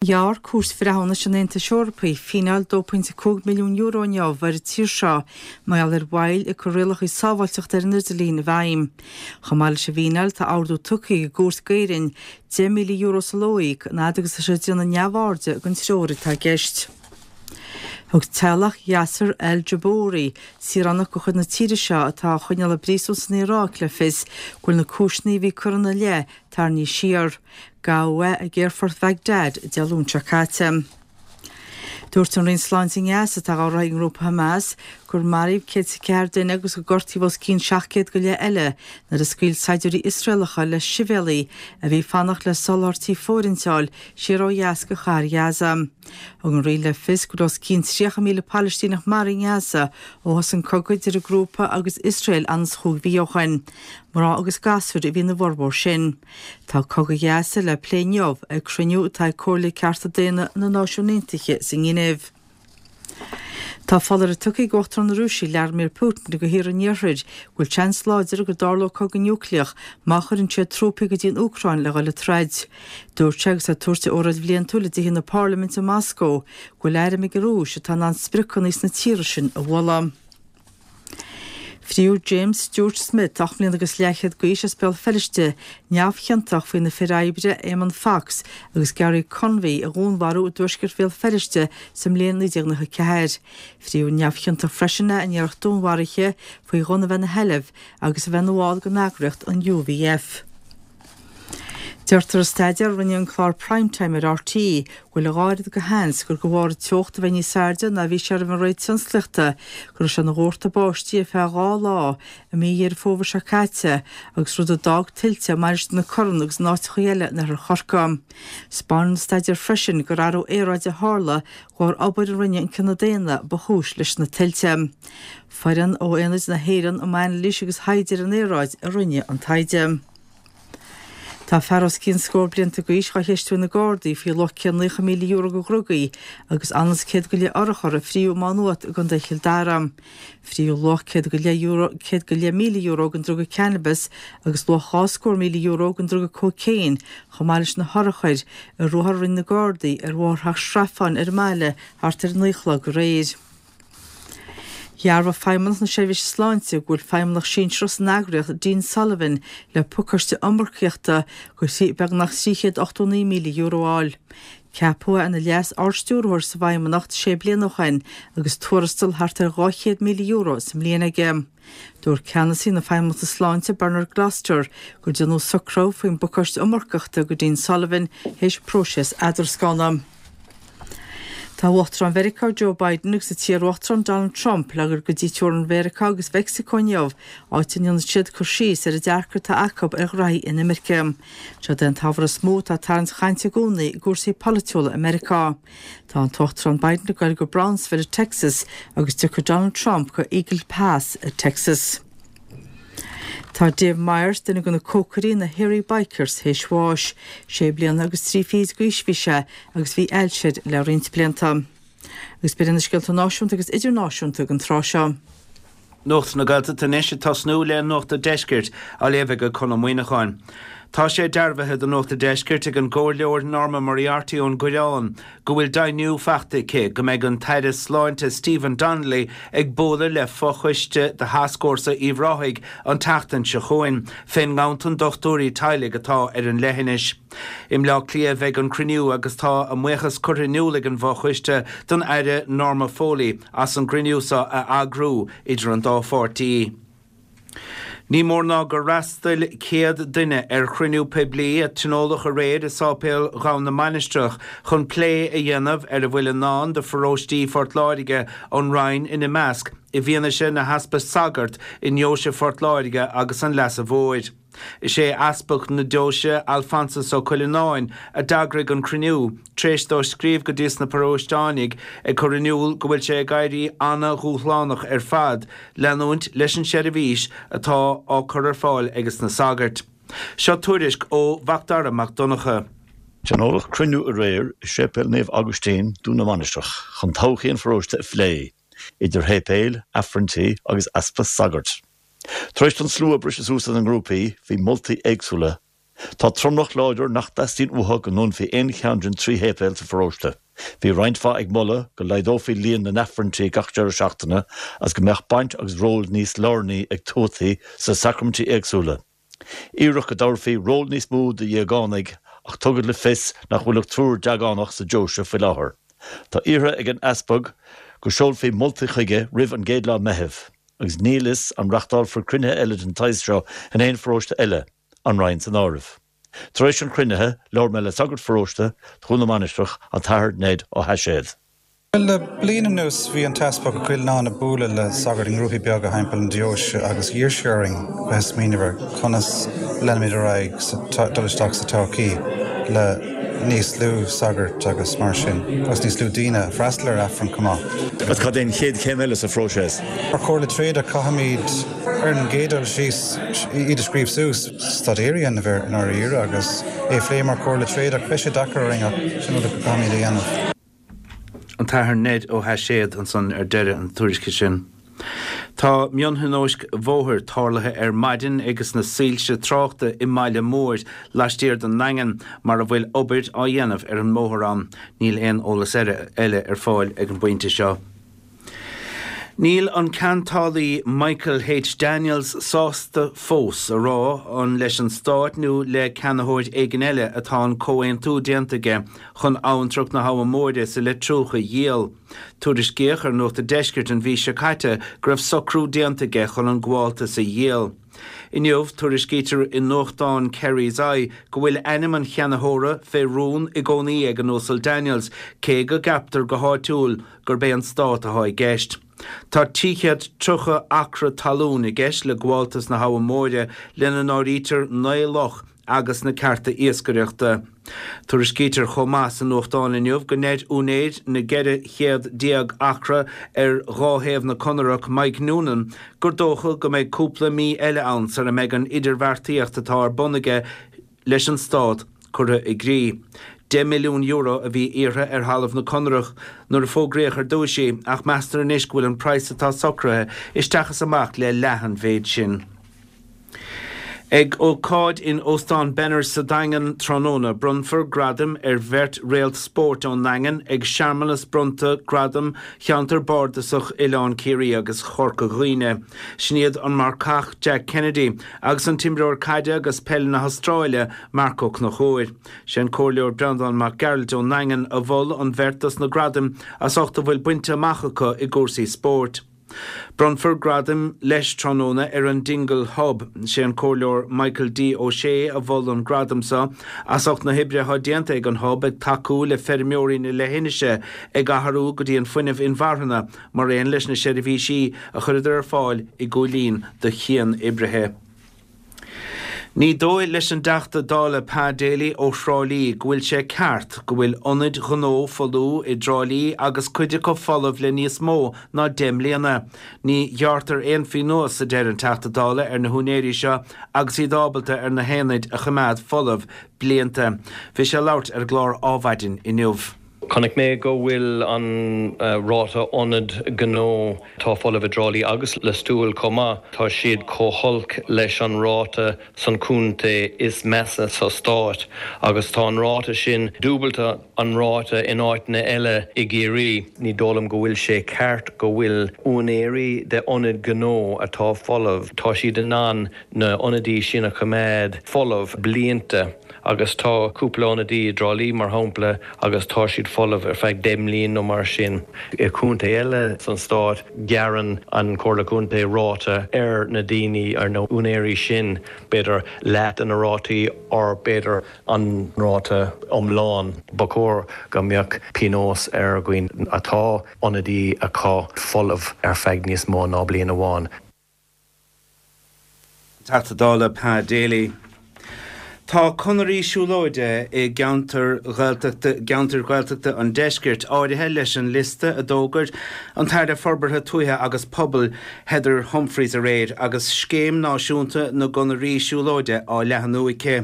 Ghearr Cúirt Bhreithiúnais an Aontais Eorpaigh fíneáil €2.5 milliún inniu ar an tír seo mar gheall ar mhoill ag cur rialacha sábháilteachta ar an idirlíon i bhfeidhm. Chomh maith leis an bhfíneáil tá ordú tugtha ag an gcúirt d'Éirinn €10,000 sa ló a íoc an fhad agus atá sé ag déanamh neamhairde den treoir atá i gceist. Thug teaghlach Yasser Al Jubouri, saoránach de chuid na tíre seo atá á choinneáil i bpríosún san Iaráic le fios go bhfuil na cúiseanna a bhí curtha ina leith tarraingthe siar. Gabhadh é ag aerfort Bhagdad Dé Luain seo caite. Dúirt an Roinn Sláinte i nGaza, atá á rith ag an ngrúpa Hamas, gur maraíodh 104 duine agus gur gortaíodh os cionn 700 go leith eile nuair a scaoil saighdiúirí Iosraelacha le sibhialaigh a bhí ag fanacht le soláthairtí fóirithinte a fháil siar ó dheas go chathair Ghaza. Thug an Roinn le fios go raibh os cionn 30,000 Palaistíneach maraithe i nGaza ó thosaigh an cogadh idir an grúpa agus Iosrael anonn is chúig mhí ó shin. Mná agus gasúir a bhí ina bhformhór sin. Tá cogadh Ghaza le plé inniu ag cruinniú atá ag Comhairle Cearta Daonna na Náisiún Aontaithe sa nGinéiv. Tá foláireamh tugtha ag Uachtarán na Rúise Vladimir Putin do thíortha an Iarthair go bhfuil seans láidir go dtarlódh cogadh núicléach má chuireann siad trúpaí go dtí an Úcráin le dhul ag troid. Dúirt sé agus é ag tabhairt a óráid bhliantúil i dTithe na Parlaiminte i Moscó go bhfuil airm ag an Rúis atá in ann spriocanna sna tíortha sin a bhualadh. Fríodh James Stuart Smith, 8 mbliana agus leathchéad d'aois as Béal Feirste, neamhchiontach faoi na fir oibre Éamonn Fox agus Gary Convie a dhúnmharú i dtuaisceart Bhéal Feirste sa mbliain 1994. Fríodh neamhchiontach freisin é in iarracht dúnmharaithe faoi ghunna a bheith ina sheilbh agus a bheith ina bhall den eagraíocht an UVF. Deirtear i staidéar a rinne an clár Prime Time ar RTÉ go bhfuil a dhá oiread de sheans gur de bharr an teocht a bheith níos airde ná a bhí sé roimh an ré tionsclaíochta go raibh sé ina dhórtadh báistí ar feadh 2 lá i mí Dheireadh Fómhair seo caite agus rud a d'fhág tuilte i Mainistir na Corann agus in áiteacha eile in oirthear Chorcaí. 'Spáineann an staidéar freisin gur athrú aeráide a tharla de bharr obair a rinne an cine daonna ba chúis leis na tuilte. Foireann ó Aonad na hÉireann um Anailís agus Thaighde ar an Aeráid a rinne an taighde. Tá fear os cionn scór blianta d'aois dhá cheistiú ag na Gardaí faoi luach €190,000 de dhrugaí agus anonn is 100 go leith urchar a fríodh i Má Nuat i gContae Chill Dara. Fríodh luach €100,000 den druga cannabis agus luach €20,000 den druga cócaon chomh maith leis na hurchair i ruathar a rinne na Gardaí ar Bhóthar Theach Srafáin ar an mbaile thart ar 9 a chlog aréir. Dhearbhaigh Feidhmeannacht na Seirbhíse Sláinte go bhfuil feidhmeannach sinsearach san eagraíocht, Dean Sullivan, le pacáiste iomarcaíochta de beagnach €389,000 a fháil. Ceapadh é ina Leas-Ardstiúrthóir sa bhFeidhmeannacht sé bliana ó shin agus tuarastal thart ar €200,000 sa mbliain aige. Dúirt ceannasaí na Feidhmeannachta Sláinte, Bernard Gloster, gur déanadh socrú faoin bpacáiste iomarcaíochta do Dean Sullivan théis próiseas eadrascána. Tá Uachtarán Mheiriceá Joe Biden agus an t-iarUachtarán Donald Trump le dhul go dtí teorainn Mheiriceá agus Mheicsiceo inniu, áit a ndéanfaidh siad cur síos ar an dearcadh atá acu ar ghraithí inimirce. Seod é an t-ábhar is mó atá ag tarraingt chainte i gcónaí i gcúrsaí polaitiúla i Meiriceá. Tá an tUachtarán Biden ag goil go Brownsville i Texas agus tiocfaidh Donald Trump go Eagle Pass i Texas. Tá Dave Myers, duine de na cócairí na Hairy Bikers, théis bháis. Sé bliana agus trí fichid d'aois a bhí sé agus bhí ailse air le roinnt blianta. Agus b'in iad na scéalta náisiúnta agus idirnáisiúnta don tráth seo. Nuacht na Gaeltachta anois ag tosnú le Nuacht an Deiscirt á léamh ag Conn Ó Muíneacháin. Tá sé dearbhaithe do Nuacht an Deiscirt ag an gComhairleoir Norma Moriarty ón gCoireán go bhfuil deimhniú faighte aici go mbeidh an tAire Sláinte Stephen Donnelly ag bualadh le fochoiste de Thascfhórsa Uíbh Ráthaigh an tseachtain seo chugainn fén nganntan dochtúirí teaghlaigh atá ar an leithinis. I mBleá Cliath a bheidh an cruinniú agus tá a mbuíochas curtha in iúl ag an bhfochoiste don Aire Norma Foley as an gcruinniú seo a eagrú idir an dá pháirtí. Ní mór ná gur fhreastail 100 duine ar chruinniú poiblí a tionóladh aréir i Sáipéal Dhomhan na Mainistreach chun plé a dhéanamh ar a bhfuil i ndán do pharóistí Phort Láirge, an Rinn ina measc, i bhfianaise na heaspa sagart i nDeoise Phort Láirge agus an Leasa Mhóir. Is é Easpag na Deoise, Alphonsus Ó Cuileanáin, a d'eagraigh an cruinniú, tar éis dó scríobh go dtí sna paróisteánaigh ag cur in iúl go bhfuil sé ag éirí ana-dhúshlánach ar fad leanúint leis an seirbhís atá á cur ar fáil ages na sagairt. Seo tuairisc ó Mhacdara Mac Donncha. Tionóladh cruinniú aréir i Séipéal Naomh Agaistín, Dún na Mainistreach, chun todhchaí an pharóiste a phlé, idir shéipéil, aifrinntí agus easpa sagart. Tar éis don slua briseadh suas ina ngrúpaí, bhí moltaí éagsúla. Tá tromlach láidir nach dteastaíonn uathu go ndúnfaí aon cheann den 3 shéipéal sa pharóiste. Bhí roinnt mhaith ag moladh go laghdófaí líon na n-aifrinntí gach deireadh seachtaine agus go mbeadh baint agus ról níos lárnaí ag tuataí sna sacraimintí éagsúla. Iarradh go dtabharfaí ról níos mó do dhéagánaigh ach tugadh le fios nach bhfuil ach triúr deagánach sa deoise faoi láthair. Tá iarrtha ag an Easpag go seolfaí moltaí chuige roimh an gcéad lá Meitheamh agus níl fhios an reachtálfar cruinnithe eile den tsaghas seo in aon pharóiste eile, an Rinn san áireamh. Tar éis an chruinnithe, labhair mé le sagart pharóiste Dhún na Mainistreach, an tAthair Ned Ó hAiséad. Bhuel, le bliain anuas bhí an tEaspag Ó Coileáin ag bualadh le sagairt i ngrúpaí beaga thimpeall an deoise agus d'iarr sé orainn bheith ag smaoineamh ar conas leanfaimid ar aghaidh sa, dul isteach sa todhchaí le níos lú sagart agus mar sin agus níos lú daoine ag freastal ar Aifreann chomh maith. Agus cad é an chéad chéim eile sa phróiseas? Mar Chomhairle Tréada caithfimid ar an gcéad dul síos iad a scríobh suas, staidéar a dhéanamh air i ndáiríre agus é a phlé mar Chomhairle Tréad ach beidh sé deacair orainn ach sin rud a caithfimid a dhéanamh. An tAthair Ned Ó hAiséad ansan ar deireadh an tuairisce sin. Tá mionthionóisc bhóthair tarlaithe ar maidin ages na soilse tráchta i mBaile Móir laistiar den nDaingean mar a bhfuil obair á dhéanamh ar an mbóthar ann. Níl aon eolas eile ar fáil ag an bpointe seo. Níl an ceantálaí Michael H. Daniels sásta fós a rá an leis an Stát nó le ceannaitheoir éigin eile atá an comhaontú déanta aige chun abhantrach na hAbha Móire sa Leitriúch a dhíol. Tuairiscíodh ar Nuacht a' Deiscirt an mhí seo caite go raibh socrú déanta aige chun an gabháltas a dhíol. Inniu, tuairiscítear i nuachtán Kerry's Eye go bhfuil ainm an cheannaitheora fé rún i gcónaí ag an Uasal Daniels, cé go gceaptar go háitiúil gurb é an Stát atá i gceist. Tá 330 acra talún i gceist le gabháltas na hAbha Móire, lena n-áirítear 9 loch agus na cearta iascaireachta. Tuairiscítear chomh maith sa nuachtán inniu go ndeir úinéir na 14 céad acra ar dhá thaobh na Conarach, Mike Noonan, gur dócha go mbeidh cúpla mí eile ann sara mbeidh an idirbheartaíocht atá ar bun aige leis an Stát curtha i gcrích. €10 milliún a bhí iarrtha ar thalamh na Conarach nuair a fógraíodh ar dtúis í, ach meastar anois go bhfuil an praghas atá socraithe isteach is amach le leath an mhéid sin. Ag ócáid in Óstán Benners sa Daingean tráthnóna, bronnfar gradaim ar bheirt réalt spóirt ón nDaingean ag searmanas bronnta gradam Cheantar Bardasach Oileán Ciarraí agus Chorca Dhuibhne. Sin iad an marcach Jack Kennedy agus an t-imreoir caide agus peile na hAstráile, Marc Ó Conchúir. Sé an Comhairleoir Breandán Mac Gearailt ón nDaingean a mhol an bheirt dos na gradaim as ucht a bhfuil bainte amach acu i gcúrsaí spóirt. Bronnfar gradaim leis tráthnóna ar an Dingle Hub. Sé an Comhairleoir Michael D Ó Sé a mhol an gradam seo as ucht na hoibre atá déanta ag an Hub ag tacú le feirmeoirí na leithinise ag athrú go dtí an fuinneamh inmharthana mar aon leis na seirbhísí a chuireadar ar fáil i gCúil Aodha do chian-oibrithe. Ní dóigh leis an dTeachta Dála Pa Daly ó Thrá Lí go bhfuil sé ceart go bhfuil ionaid ghnó folmha i dTrá Lí agus cuid acu folamh le níos mó ná 10 mbliana. Ní ghearrtar aon phionós, a deir an Teachta Dála, ar na húinéirí seo agus iad ábalta ar na haonaid a choimeád folamh blianta. Bhí sé ag labhairt ar an gclár Ádhmhaidin inniu. Chonaic mé go bhfuil an ráta ionad gnó atá folamh i dTrá Lí agus Lios Tuathail chomh maith, tá siad chomh holc leis an ráta san contae is measa sa stát agus tá an ráta sin dúbalta an ráta in áiteanna eile i gCiarraí. Ní dóigh liom go bhfuil sé ceart go bhfuil úinéirí de ionaid gnó atá folamh, tá siad in ann na ionadaí sin a choimeád folamh blianta agus tá cúpla ionadaí i dTrá Lí mar shampla agus tá siad folamh ar feadh 10 mbliain nó mar sin. I contae eile san stát gearrann an Comhairle Contae ráta ar na daoine, ar na úinéirí sin, b'fhéidir leath de na rátaí or b'fhéidir an ráta iomlán. Ba chóir go mbeadh pionós ar dhaoine atá ionadaí acu folamh ar feadh níos mó ná bliain amháin. Teachta Dála Pa Daly. Tá conairí siúlóide i gceantar Ghaeltachta gceantair Ghaeltachta an deiscirt áirithe leis an liosta a d'fhógair an tAire Forbartha Tuaithe agus Pobail Heather Humphreys aréir agus Scéim Náisiúnta na gConairí Siúlóide á leathnú aici.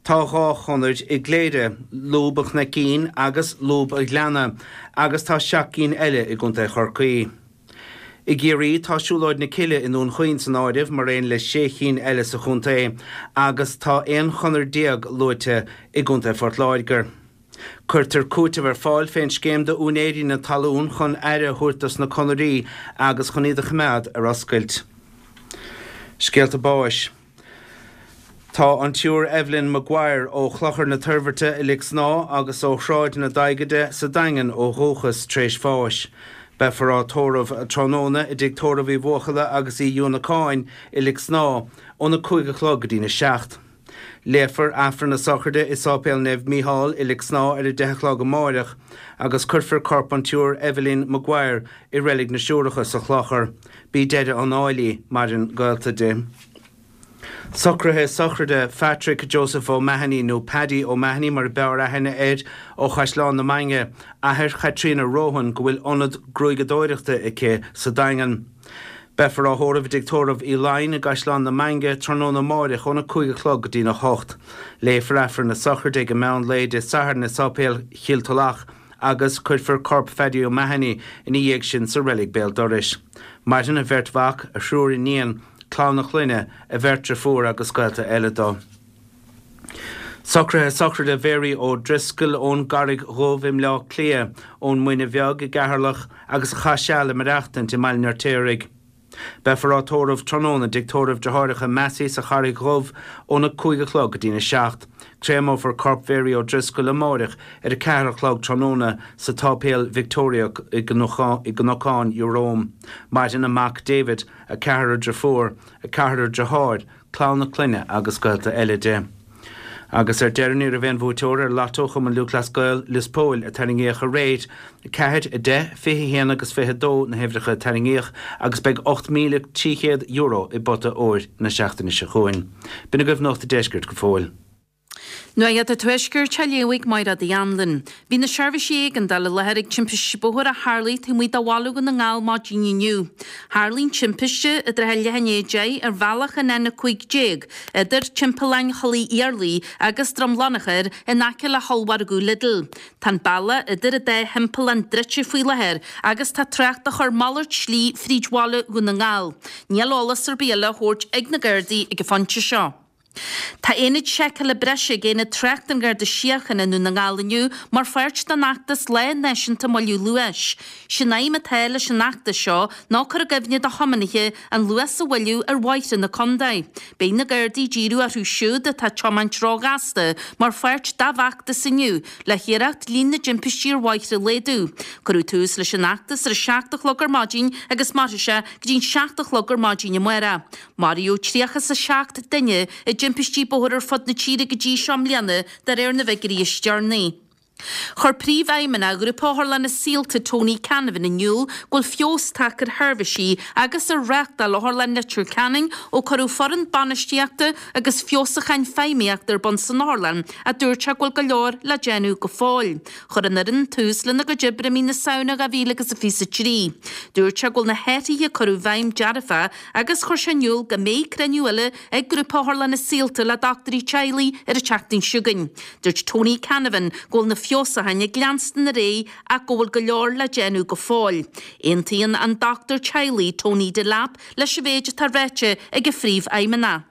Tá 2 chonair i gCléire, Lúb an Chnoicín agus Lúb an Ghleanna, agus tá 7 gcinn eile i gContae Chorcaí. I gCiarraí, tá Siúlóid na Cille i nDún Chaoin san áireamh, mar aon le sé chinn eile sa chontae, agus tá 11 chonair luaite i gContae Phort Láirge. Cuirtear cúiteamh ar fáil fén scéim do úinéirí na talún chun aire a thabhairt dos na conairí agus chun iad a choimeád ar oscailt. Scéalta báis. Tá an tSiúr Evelyn Maguire ó Chlochar na Toirbhirte i Lic Snámha agus ó Shráid na Daighide sa Daingean ó dhúchas tar éis bháis. Beifear á tórramh tráthnóna i dTigh Tórraimh Uí Bhuachalla agus Uí Uanacáin i Lic Snámha óna 5 a chlog go dtína 7. Léifear Aifreann na Sochraide i Sáipéal Naomh Mícheál i Lic Snámha ar a 10 a chlog amáireach agus cuirfear corp an tSiúr Evelyn Maguire i Reilig na Siúracha sa Chlochar. B'í deireadh an áil í, maireann gaolta di. Socruithe sochraide Phatrick Joseph O'Mahony, nó Paddy O'Mahony mar a b'fhearr aithne air, ó Chaisleán na Mainge, athair Chaitríona Rohan go bhfuil ionad gruaigeadóireachta aici sa Daingean. Beifear á thórramh i dTigh Tórraimh Uí Laighin i gCaisleán na Mainge tráthnóna amáireach óna 5 a chlog go dtína 8. Léifear Aifreann na sochraide ag an meán lae Dé Sathairn i Sáipéal Chill Tulach agus cuirfear corp Phaddy O'Mahony ina dhiaidh sin sa reilig béal dorais. Maireann a bheirt mhac, a thriúr iníon, clann a chlainne, a bheirt driofúr agus gaolta eile dó. Socruithe sochraide Mhary O'Driscoll ón gCarraig Dhubh i mBleá Cliath, ón Muine Bheag i gCeatharlach agus a chaith seal ag maireachtaint i mBaile an Fheirtéaraigh. Beifear á tórramh tráthnóna i dTigh Tórraimh Deartháireacha Massey sa Charraig Dhubh óna 5 a chlog go dtína 7. Créamófar corp Mhary O'Driscoll amáireach ar a 4 a chlog tráthnóna sa tSáipéal Victoria i gCnocán Iúr. Maireann a mac David, a ceathrar driofúr, a ceathrar deartháir, clann a clainne agus gaolta eile di. Agus ar deireadh ní raibh aon bhuaiteoir ar Lotto Chumann Lúthchleas Gael Lios Póil a tarraingíodh aréir. 4, 10, 21 agus 22 na huimhreacha a tarraingíodh agus beidh €8,300 i bpota óir na seachtaine seo chugainn. B'in agaibh Nuacht an Deiscirt go fóill. Nuacht an Tuaiscirt á léamh ag Mairéad Uí Anluain. Bhí na seirbhísí éigeandála i láthair ag timpiste bóthair a tharlaigh taobh amuigh de bhaile Dhún na nGall maidin inniu. Tharlaigh an timpiste i dtrátha leath i ndiaidh 10 ar bhealach an N15 idir Timpeallán Thulaigh Iarlaith agus Droim Lonchair in aice le hollmhargadh Lidl. Tá an bealach idir an dá thimpeallán druidte faoi láthair agus tá trácht á chur malairt slí fríd bhaile Dhún na nGall. Níl eolas ar bith eile á thabhairt ag na Gardaí ag an phointe seo. Tá aonad seiceála breise ag Aonad Tráchta an Gharda Síochána i nDún na nGall inniu mar pháirt den fheachtas Lá Náisiúnta Moilliú Luais. Sé'n aidhm atá leis an fheachtas seo ná cur i gcuimhne do thiománaithe an luas a mhoilliú ar bhóithre na contae. Beidh na Gardaí ag díriú orthu siúd atá ag tiomáint róghasta mar pháirt dá bhfeachtas inniu le hiarracht líon na dtimpistí ar bhóithre a laghdú. Cuireadh tús leis an fheachtas ar a 7 a chlog ar maidin agus mairfidh sé go dtí'n 7 a chlog ar maidin amárach. Maraíodh 37 duine i dtimpistí bóthair ar fud na tíre go dtí seo i mbliana, de réir na bhfigiúirí is deireanaí. Chuir Príomhfheidhmeannach Ghrúpa Otharlanna Saolta Tony Canavan in iúl go bhfuil feabhas tagtha ar sheirbhísí agus ar reáchtáil Otharlann Leitir Ceanainn ó cuireadh foireann bainistíochta agus feabhsúcháin feidhmíochta ar bun san otharlann ach dúirt sé go bhfuil go leor le déanamh go fóill. Chuir an fhoireann tús lena gcuid oibre i mí na Samhna 2023. Dúirt sé go bhfuil na hathruithe a cuireadh i bhfeidhm dearfach agus chuir sé in iúl go mbeidh cruinniú eile ag Grúpa Otharlanna Saolta le dochtúirí teaghlaigh ar an tseachtain seo chugainn. Dúirt Tony Canavan go bhfuil na feabhsúcháin ag leanstan ar aghaidh ach go bhfuil go leor le déanamh go fóill. Aontaíonn an dochtúir teaghlaigh Tony Delap leis an mhéid atá ráite ag an phríomhfheidhmeannach.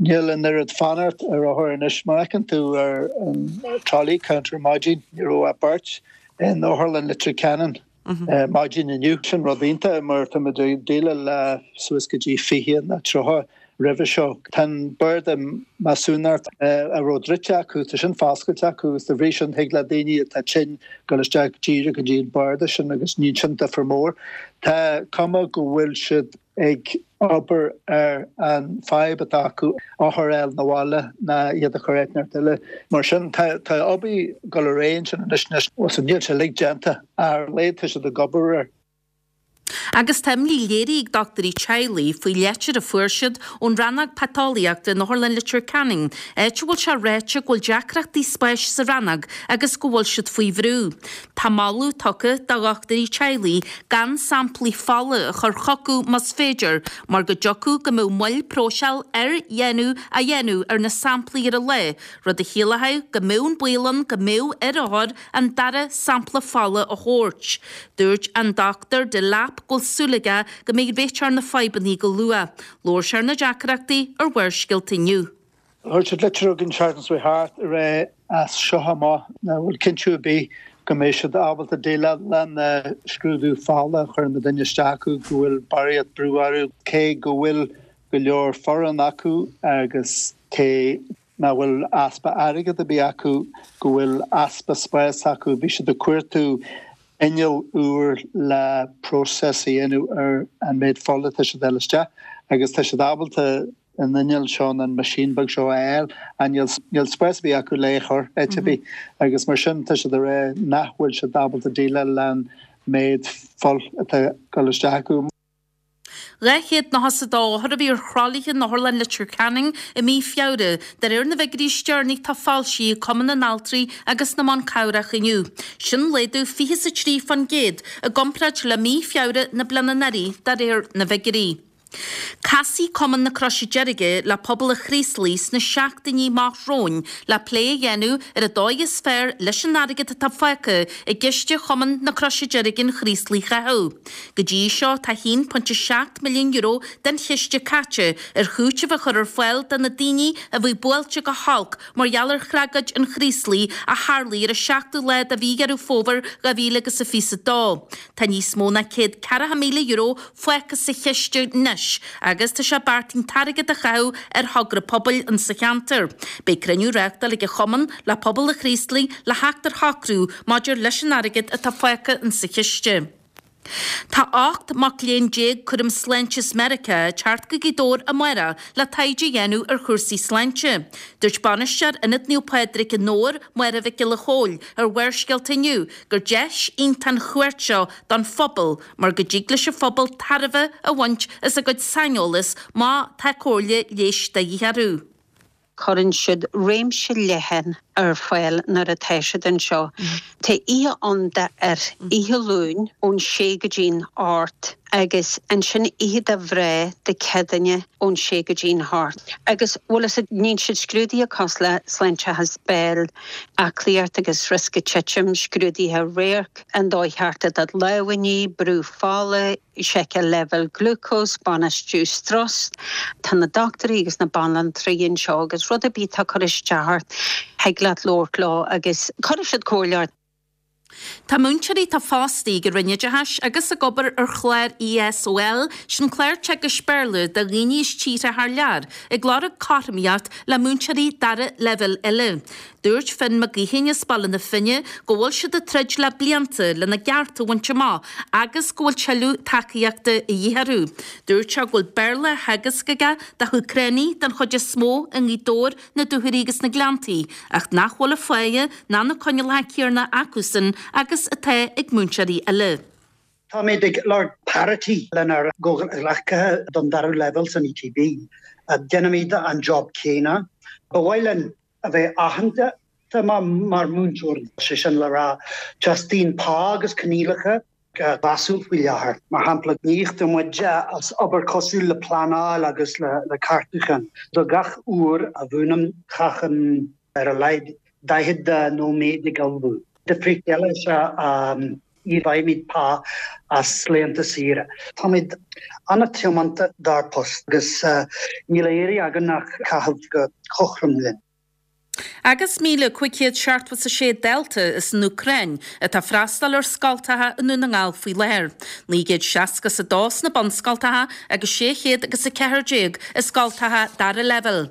Níl an oiread fanacht ar othair anois. Mar a fheiceann tú ar an trolley counter ar maidin, ní raibh ach beirt in Otharlann Leitir Ceanainn maidin inniu. Sin rud iontach mar tá muid ag déileáil le suas go dtí 20 nó 30 roimhe seo. Tá an barda measúnachta a raibh druidte acu, tá sin foscailte acu agus dá bhrí sin thig le daoine atá tinn dul isteach díreach go dtí an barda sin agus ní sin difear mór. Tá cuma go bhfuil siad ag obair ar an fadhb atá acu othair a fháil 'na bhaile ná iad a chur áit inteacht eile. Mar sin tá tá obair ag dul ar aghaidh ansin anois anois. Níl sé uilig déanta ach ar a laghad tá siad ag obair air. Agus tá imní léirithe ag dochtúirí teaghlaigh faoi leitir a fuair siad ón rannóg paiteolaíochta in Otharlann Leitir Ceanainn, áit a bhfuil sé ráite go bhfuil deacrachtaí spáis sa rannóg agus go bhfuil siad faoi bhrú. Tá moladh tugtha do dhochtúirí teaghlaigh gan samplaí fola a chur chucu más féidir mar go dtiocfadh go mbeadh moill próiseáil ar dhéanamh á dhéanamh ar na samplaí ar an lá, rud a chiallódh go mbeadh an baol ann go mbeadh ar othair an dara sampla fola a thabhairt. Dúirt an Dr Delap go bhfuil. súil aige go mbeidh réiteach ar na fadhbanna go luath. Labhair sé ar na deacrachtaí ar Bharrscéalta inniu. Chuir siad litir chugainn an tseachtain seo thart ag rá as seo amach nach bhfuil cinntiú ar bith go mbeidh siad ábalta déileáil le na scrúdú fola a chuireann muidinne isteach acu, go bhfuil barraíocht brú orthu, cé go bhfuil go leor foireann acu agus cé nach bhfuil easpa airgead ar bith acu, go bhfuil easpa spáis acu. Bhí siad ag cuartú inneall úr le próiseas a dhéanamh ar an méid fola atá siad a fháil isteach agus tá siad ábalta an inneall seo nó an machine beag seo a fháil ach níl níl spás ar bith acu le é a chur áit ar bith agus mar sin tá siad ag rá nach bhfuil siad ábalta déileáil le an méid fuil atá ag dul isteach acu. 292 othar a bhí ar thralaithe in Otharlann Leitir Ceanainn i mí Feabhra, de réir na bhfigiúirí is deireanaí atá foilsithe ag Cumann na nAltraí agus na mBan Cabhrach inniu. Sin laghdú 23% i gcomparáid le mí Feabhra na bliana anuraidh, de réir na bhfigiúirí. Casfaidh Cumann na Croise Deirge le pobal an Chraoslaigh sna seachtainí amach romhainn le plé a dhéanamh ar an dóigh is fearr leis an airgead atá fágtha i gciste Chumann na Croise Deirge an Chraoslaigh a chaitheamh. Go dtí seo tá €1.7 milliún den chiste caite ar chúiteamh a chur ar fáil do na daoine a bhí buailte go holc mar gheall ar thragóid an Chraoslaigh a tharlaigh ar an seachtú lá de mhí Dheireadh Fómhair 2022. Tá níos mó ná €140,000 fágtha sa chiste anois agus tá sé beartaithe an t-airgead a chaitheamh ar thogra pobail insa cheantar. Beidh cruinniú á reáchtáil ag an chumann le pobal an Chraoslaigh le theacht ar shocrú maidir leis an airgead atá fágtha insa chiste. Tá 18 mac léinn cúram sláinte as Meiriceá ag teacht go Gaoth Dobhair amárach le taighde a dhéanamh ar chúrsaí sláinte. Dúirt bainisteoir Ionad Naomh Pádraig i nDobhar, Máire Mhic Giolla Chóill, ar Bharrscéalta inniu gur deis iontach an chuairt seo don phobal mar go dtig leis an phobal tairbhe a bhaint as a gcuid saineolas má tá comhairle leighis de dhíth orthu. Cuireann siad réimse leathan ar fáil nuair atá siad anseo. Tá oíche ann d'fhir, oíche Luain ón sé go dtí'n hocht agus ansin oíche do mhná Dé Céadaoine ón sé go dtí'n hocht. Agus bhfuil fhios a'd, níonn siad scrúduithe cosúil le sláinteachas béil, aclaíocht agus riosca titim, scrúduithe radhairc, an dóigh cheart le do lámha a ní, brú fola, seiceáil leibhéal glúcós, bainistiú strus. Tá na dochtúirí agus na banaltraí anseo agus rud ar bith atá ag cur isteach ort, thig leat labhairt leo agus cuirfidh siad comhairle ort. Tá múinteoirí atá fostaithe ag an Roinn Oideachais agus ag obair ar chlár ESOL, sin clár teagaisc Béarla do dhaoine as tíortha thar lear, ag lorg cothromaíocht le múinteoirí dara leibhéal eile. Dúirt Finn Mac Gaoithín as Baile na Finne go bhfuil siad ag troid le blianta lena gcearta a bhaint amach agus go bhfuil tuilleadh tacaíochta a dhíth orthu. Dúirt sé go bhfuil Béarla á theagasc aige do hÚcránaigh den chuid is mó i nGaoth Dobhair, na Dúchoraidh agus na Gleanntaí ach nach bhfuil an pháighe ná na coinníollacha céanna acusan agus atá ag múinteoirí eile. Táimid ag lorg parity lenár gcomhghleacaithe don dara leibhéal san ETB. Déanaimid an job céanna. Ba mhaith linn a bheith aitheanta mar mhúinteoirí, sé sin le rá, teastaíonn pá agus coinníollacha mheasúil faoi láthair. Mar shampla, ní íoctar muid as obair cosúil le pleanáil agus le ceartúchán. Do gach uair a mhúinim, caithim ar a laghad 40 nóiméad ag ullmhú. Difríocht eile is ea ní fhaighimid pá as laethanta saoire. Táimid an-tiomanta dár bpost agus níl á iarraidh againn ach caitheamh go cothrom linn. Agus 1,576 dalta as an Úcráin atá ag freastal ar scoltacha i nDún na nGall faoi láthair, 962 sna bunscoltacha agus 614 i scoltacha dara leibhéal.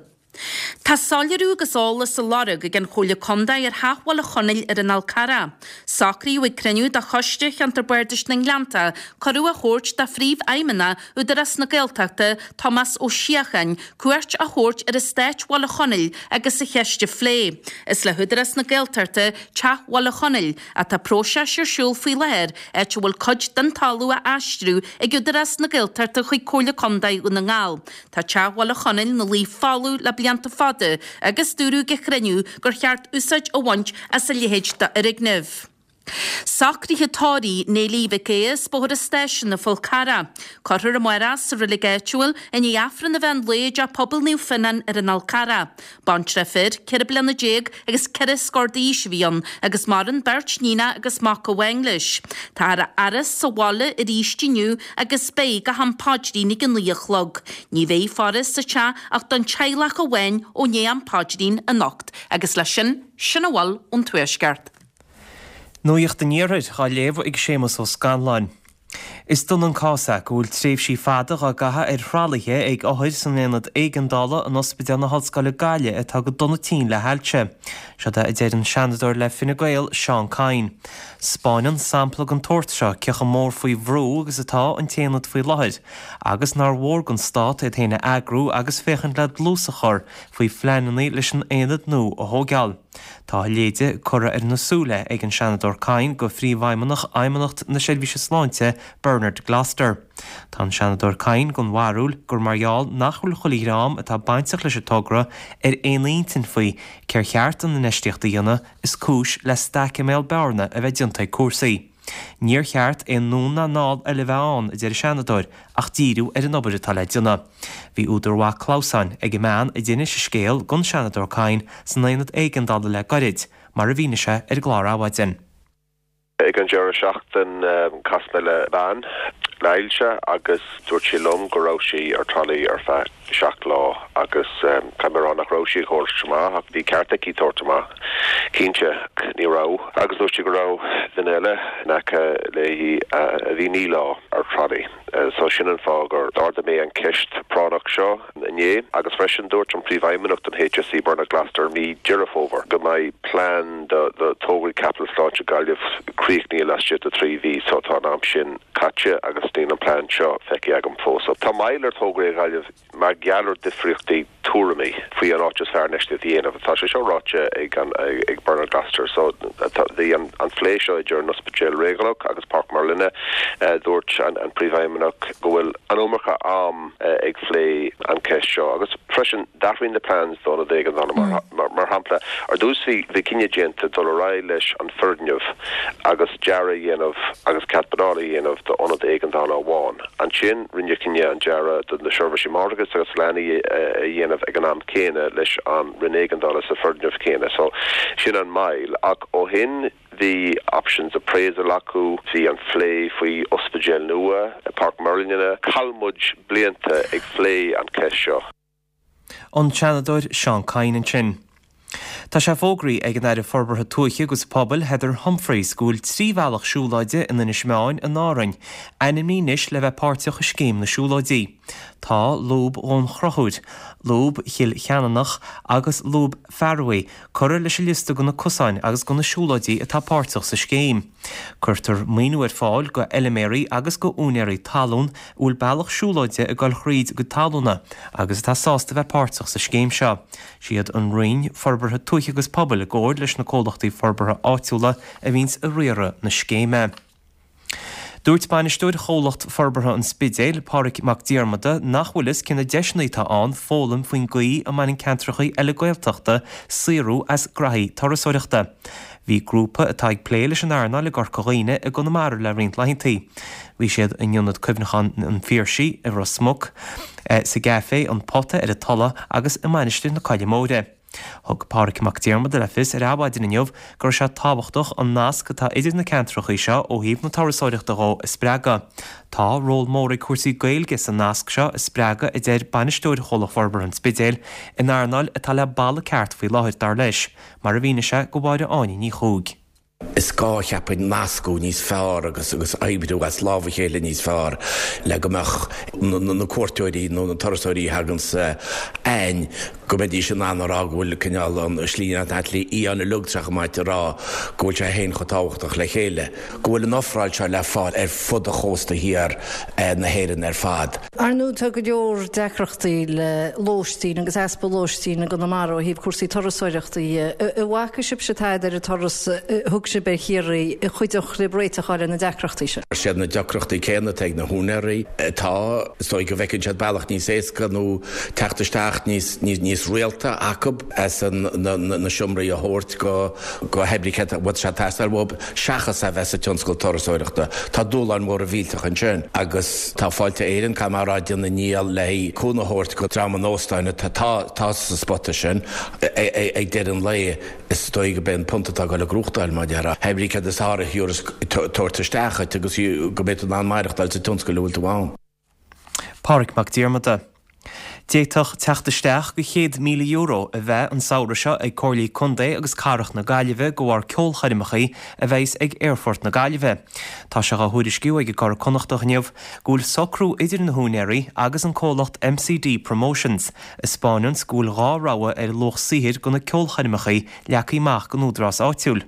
Tá soiléiriú agus eolas á lorg ag an Chomhairle Contae ar Theach Bhaile Chonaill ar an Fhál Carrach. Socraíodh ag cruinniú de Choiste Cheantar Bardais na nGleannta cuireadh a thabhairt do Phríomhfheidhmeannach Údarás na Gaeltachta, Tomás Ó Síocháin, cuairt a thabhairt ar eastát Bhaile Chonaill agus an cheist a phlé. Is le hÚdarás na Gaeltachta Teach Bhaile Chonaill ach tá próiseas ar siúl faoi láthair áit a bhfuil cuid den talamh á aistriú ag Údarás na Gaeltachta chuig Comhairle Contae Dhún na nGall. Tá Teach Bhaile Chonaill ina luí folamh le blianta fada agus dúradh ag an chruinniú gur cheart úsáid a bhaint as a leithéid d'fhoirgneamh. Socruithe tórraimh Néilí Mhic Aodha as Bóthar an Stáisiúin, an Fhál Carrach. Cuirfear amárach sa reilig áitiúil i ndiaidh Aifreann an mheán lae i dTeach Pobail Naomh Fionnán ar an Fhál Carrach. Baintreach fir, 14 bliana agus 4 scór d'aois a bhí ann agus maireann beirt níonach agus mac amháin leis. Táthar á fhaire sa bhaile arís inniu agus beidh go ham paidrín ag a 9 a chlog. Ní bheidh faire sa teach ach don teaghlach amháin ó ndiaidh am paidrín anocht agus leis sin, sin a bhfuil ón Tuaisceart. Nuacht an Iarthair á léamh ag Séamus Ó Scanláin. Is dona an cás é go bhfuil tréimhsí fada dhá gcaitheamh ar thralaithe ag othair san aonad éigeandála in Ospidéal na hOllscoile Gaillimh atá go dona tinn le hailse. Siod é a deir an Seanadóir le Fine Gael, Seán Kyne. 'Spáineann sampla den tsórt seo cé chomh mór faoi bhrú agus atá an t-aonad faoi láthair agus nár mhór don Stát iad féin a eagrú agus féachaint le dlús a chur faoi phleananna leis an aonad nua a thóigeáil. Tá a leithéide curtha ar na súile ag an Seanadóir Kyne go Phríomhfheidhmeannach Fheidhmeannacht na Seirbhíse Sláinte, Bernard Gloster. Tá an Seanadóir Kyne den bharúil gur mar gheall nach bhfuil chuile dhream atá bainteach leis an togra ar aon intinn faoi cér cheart an infheistíocht a dhéanamh is cúis le staic i mbéal bearna a bheith déanta ag cúrsaí. Níor cheart aon anonn ná anall eile a bheith ann, a deir an Seanadóir, ach díriú ar an obair atá le déanamh. Bhí údar mhaith clamhsáin ag an mbean a d'inis a scéal don Seanadóir Kyne san aonad éigeandála le gairid, mar a mhínigh sé ar an gclár Adhmhaidin. Ag an deireadh seachtain chas mé le bean le hailse agus dúirt sí liom go raibh sí ar tralaí ar feadh 7 lá agus caithfidh mé a rá nach raibh sí ag tabhairt amach ach bhí ceart aici tabhairt amach, cinnte. Ní raibh. Agus dúirt sí go raibh duine eile in aice léi a bhí 9 lá ar tralaí. So sin an fáth gur d'ardaigh mé an ceist práinneach seo inné. Agus freisin dúirt an Príomhfheidhmeannach don HSE, Bernard Gloster, mí Deireadh Fómhair go mbeidh plean do tograí caipitil sláinte Gaillimh críochnaithe laistigh de 3 mhí. So tá an am sin caite agus níl an plean seo feicthe agam fós. Tá moill ar thograí i nGaillimh mar gheall ar difríochtaí tuairimí faoi an áit is fearr infheistíocht a dhéanamh. Tá sé seo ráite ag ag Bernard Gloster. So bhí an phlé seo idir an Ospidéal Réigiúnach agus Páirc Merlin. Dúirt an Príomhfheidhmeannach go bhfuil an iomarca am ag phlé an cheist seo agus freisin d'athraigh na plans d'ionad éigeandála mar shampla ar dtús bhí bhí cinneadh déanta dul ar aghaidh leis an foirgneamh agus dearadh a dhéanamh agus cead pleanála a dhéanamh d'ionad éigeandála amháin. Ansin rinneadh cinneadh an dearadh do na seirbhísí máithreachais agus leanaí a dhéanamh ag an am céanna leis an Roinn Éigeandála sa foirgneamh céanna. So sin an moill. Ach ó shin bhí options appraisal acu, bhí an phlé faoi ospidéal nua i Páirc Merlin. Chaill muid blianta ag phlé an cheist seo. An Seanadóir Seán Kyne ansin. Tá sé fógraithe ag an Aire Forbartha Tuaithe agus Pobail Heather Humphreys go bhfuil 3 bhealach siúlóide in Inis Meáin in Árainn ainmnithe anois le bheith páirteach i Scéim na Siúlóidí. Tá Lúb Dhún Chonchúir, Lúb Chill Cheanannach agus Lúb Fearbhaí curtha leis an liosta de na cosáin agus de na siúlóidí atá páirteach sa scéim. Cuirtear maoiniú ar fáil go fheilméaraí agus go úinéirí talún a bhfuil bealach siúlóide ag dul thríd a gcuid talúna agus atá sásta bheith páirteach sa scéim seo. Siad an Roinn Forbartha Tuaithe agus Pobail i gcomhair leis na comhlachtaí forbartha áitiúla a bhíonns ag riaradh na scéime. Dúirt bainisteoir Chomhlacht Forbartha an Spidéil, Pádraig Mac Diarmada, nach bhfuil fhios cé na deiseanna atá ann foghlaim faoin gcaoi a mbaineann ceantracha eile Gaeltachta saothrú as graithí turasóireachta. Bhí grúpa atá ag plé leis an earnáil i gCorca Dhuibhne i gConamara le roinnt laethanta. Bhí siad in Ionad Cuimhneacháin an Phiarsaigh i Ros Muc, sa gcaifé An Pota ar an Tulaigh agus i Mainistir na Coille Móire. Thug Pádraig Mac Diarmada le fios ar Adhmhaidin inniu go raibh sé tábhachtach an nasc atá idir na ceantracha seo ó thaobh na turasóireachta dhó a spreagadh. Tá ról mór ag cúrsaí Gaeilge sa nasc seo a spreagadh a deir bainisteoir Chomhlacht Forbartha an Spidéil, in earnáil atá le balla ceart faoi láthair, dar leis, mar a mhínigh sé go Mháire Áine Ní Chuaig. Is gá, cheapfainn, nascadh níos fearr agus agus oibriú as lámh a chéile níos fearr le go mbeadh na cuairteoirí nó na turasóirí a thaganns againn, go mbeidís in ann a rá go bhfuil cineál an Slí Fhiáin uilig tá sé chomh maith a rá go bhfuil sé féin chomh tábhachtach le chéile, go bhfuil an ofráil seo le fáil ar fud an chósta thiar na hÉireann ar fad. Ar ndóigh tá go leor deacrachtaí le lóistín agus easpa lóistín i gConamara ó thaobh cúrsaí turasóireachta dhe. An bhfaca sibhse tada ar an turas a thug sibh ar Chiarraí a chuideodh libh réiteach a fháil ar na deacrachtaí sin? Is iad na deacrachtaí céanna atá ag na húinéirí atá, is dóigh go bhfeiceann siad bealach níos éasca nó teacht isteach. teacht níos, níos rialta acu as na seomraí a thabhairt go, go hoibrithe a bhfuil sé ag teastáil uathu seachas a bheith sa tionscal turasóireachta. Tá dúshláin mhóra mhillteacha ansin agus tá Fáilte Éireann, caithfidh mé a rá, ag déanamh a ndícheall le cúnamh a thabhairt go dream an óstáin atá sa spota sin ag deireadh an lae. Is dóigh go b'é an punt atá ag dul ag gnóthachtáil, mar a déarfá. Hé brí céard is fearr a thiúrfas tabhairt isteach dhuit agus go mbeidh tú in ann maireachtáil sa tionscal a bhfuil tú ann. Pádraig Mac Diarmada. D'fhéadfadh teacht isteach go €100,000 a bheith an samhradh seo ag Comhairlí Contae agus Cathrach na Gaillimhe de bharr ceolchoirmeachaí a bheas ag Aerfort na Gaillimhe. Tá sé dhá thuairisciú ag an gCuradh Connachtach inniu go bhfuil socrú idir na húinéirí agus an comhlacht MCD Promotions a 'spáineanns go bhfuil 2 rogha ar luach saothair go na ceolchoirmeachaí leagtha amach gon údarás áitiúil.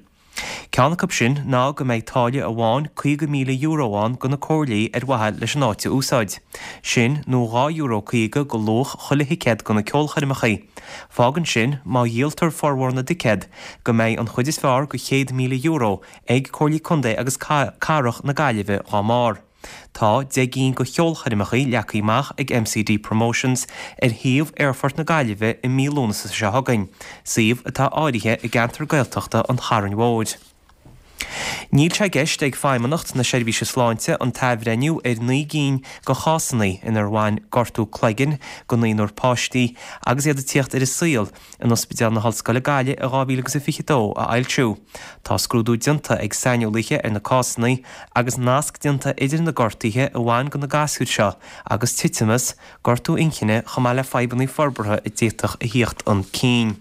Ceann acu sin ná go mbeidh táille amháin €50,000 ann go na comhairlí ar mhaithe leis an áit a úsáid. Sin nó €2.50 go luach chuile thicéad go na ceolchoirmeachaí. Fágann sin, má dhíoltar formhór na dticéad, go mbeidh an chuid is fearr go €100,000 ag Comhairlí Contae agus Cathrach na Gaillimhe dhá mbarr. Tá 10 gcinn de cheolchoirmeachaí leagtha amach ag MCD Promotions ar shuíomh Aerfort na Gaillimhe i mí Lúnasa seo chugainn, suíomh atá áirithe i gceantar Gaeltachta an Chairn Mhóir. Níl sé i gceist ag Feidhmeannacht na Seirbhíse Sláinte an t-athbhreithniú ar 9 gcinn de chásanna inar bhain gortú cloiginn go naonúr páistí agus iad ag tíocht ar an saol in Ospidéal na hOllscoile Gaillimh i 2022 a fhoilsiú. Tá scrúdú déanta ag saineolaithe ar na cásanna agus nasc déanta idir na gortuithe a bhain go na gasúir seo agus titimeas, gortú inchinne chomh maith le fadhbanna forbartha a d'fhéadfadh a thíocht chun cinn.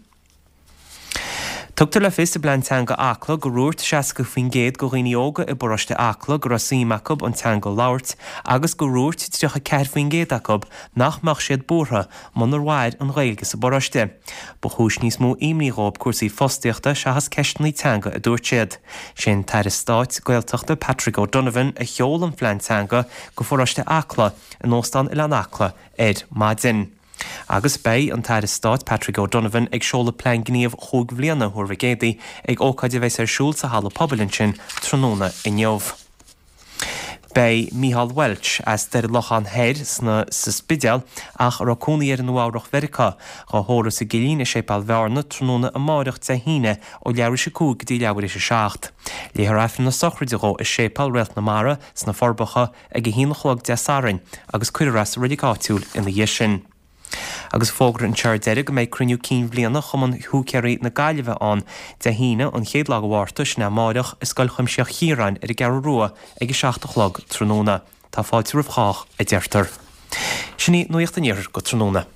Tugtar le fios i bPlean Teanga Acla gur dhúirt 60% de dhaoine óga i bparóiste Acla go raibh suim acu an teanga a labhairt agus gur dhúirt 34% acu nach mbeadh siad buartha munar mhair an Ghaeilge sa bparóiste. Ba chúis níos mó imní dhóibh cúrsaí fostaíochta seachas ceisteanna teanga a dúirt siad. Sé an tAire Stáit Gaeltachta Patrick O'Donovan a sheol an phlean teanga go pharóiste Acla in Óstán Oileán Acla ar maidin. Agus beidh an tAire Stáit Patrick O'Donovan ag seoladh plean gníomh chúig bhliana Thuar Mhic Éadaigh ag ócáid a bheas ar siúl sa halla pobail ansin tráthnóna inniu. Beidh Micheál Welch, as Doire Locháin Thoir sna sa Spidéal ach a raibh cónaí air i Nua Eabhrach Mheiriceá, dhá thórramh sa gCillín i Séipéal Bhearna tráthnóna amáireach Dé hAoine ó leathuair éis a 5 go dtí leathuair éis a 7. Léifear Aifreann na sochraide dhó i Séipéal Réalt na Mara sna Forbacha ag a haon a chlog Dé Sathairn agus cuirfear é sa reilig áitiúil ina dhiaidh sin. Agus fógra anseo ar deireadh go mbeidh cruinniú cinn bhliana Chumann Húicéirí na Gaillimhe ann Dé hAoine, an chéad lá de Mhárta, sin é amáireach, i Scoil Chuimsitheach Chiaráin ar an gCeathrú Rua ag 7 a chlog tráthnóna. Tá fáilte roimh chách, a deirtear. Sin í Nuacht an Iarthair go tráthnóna.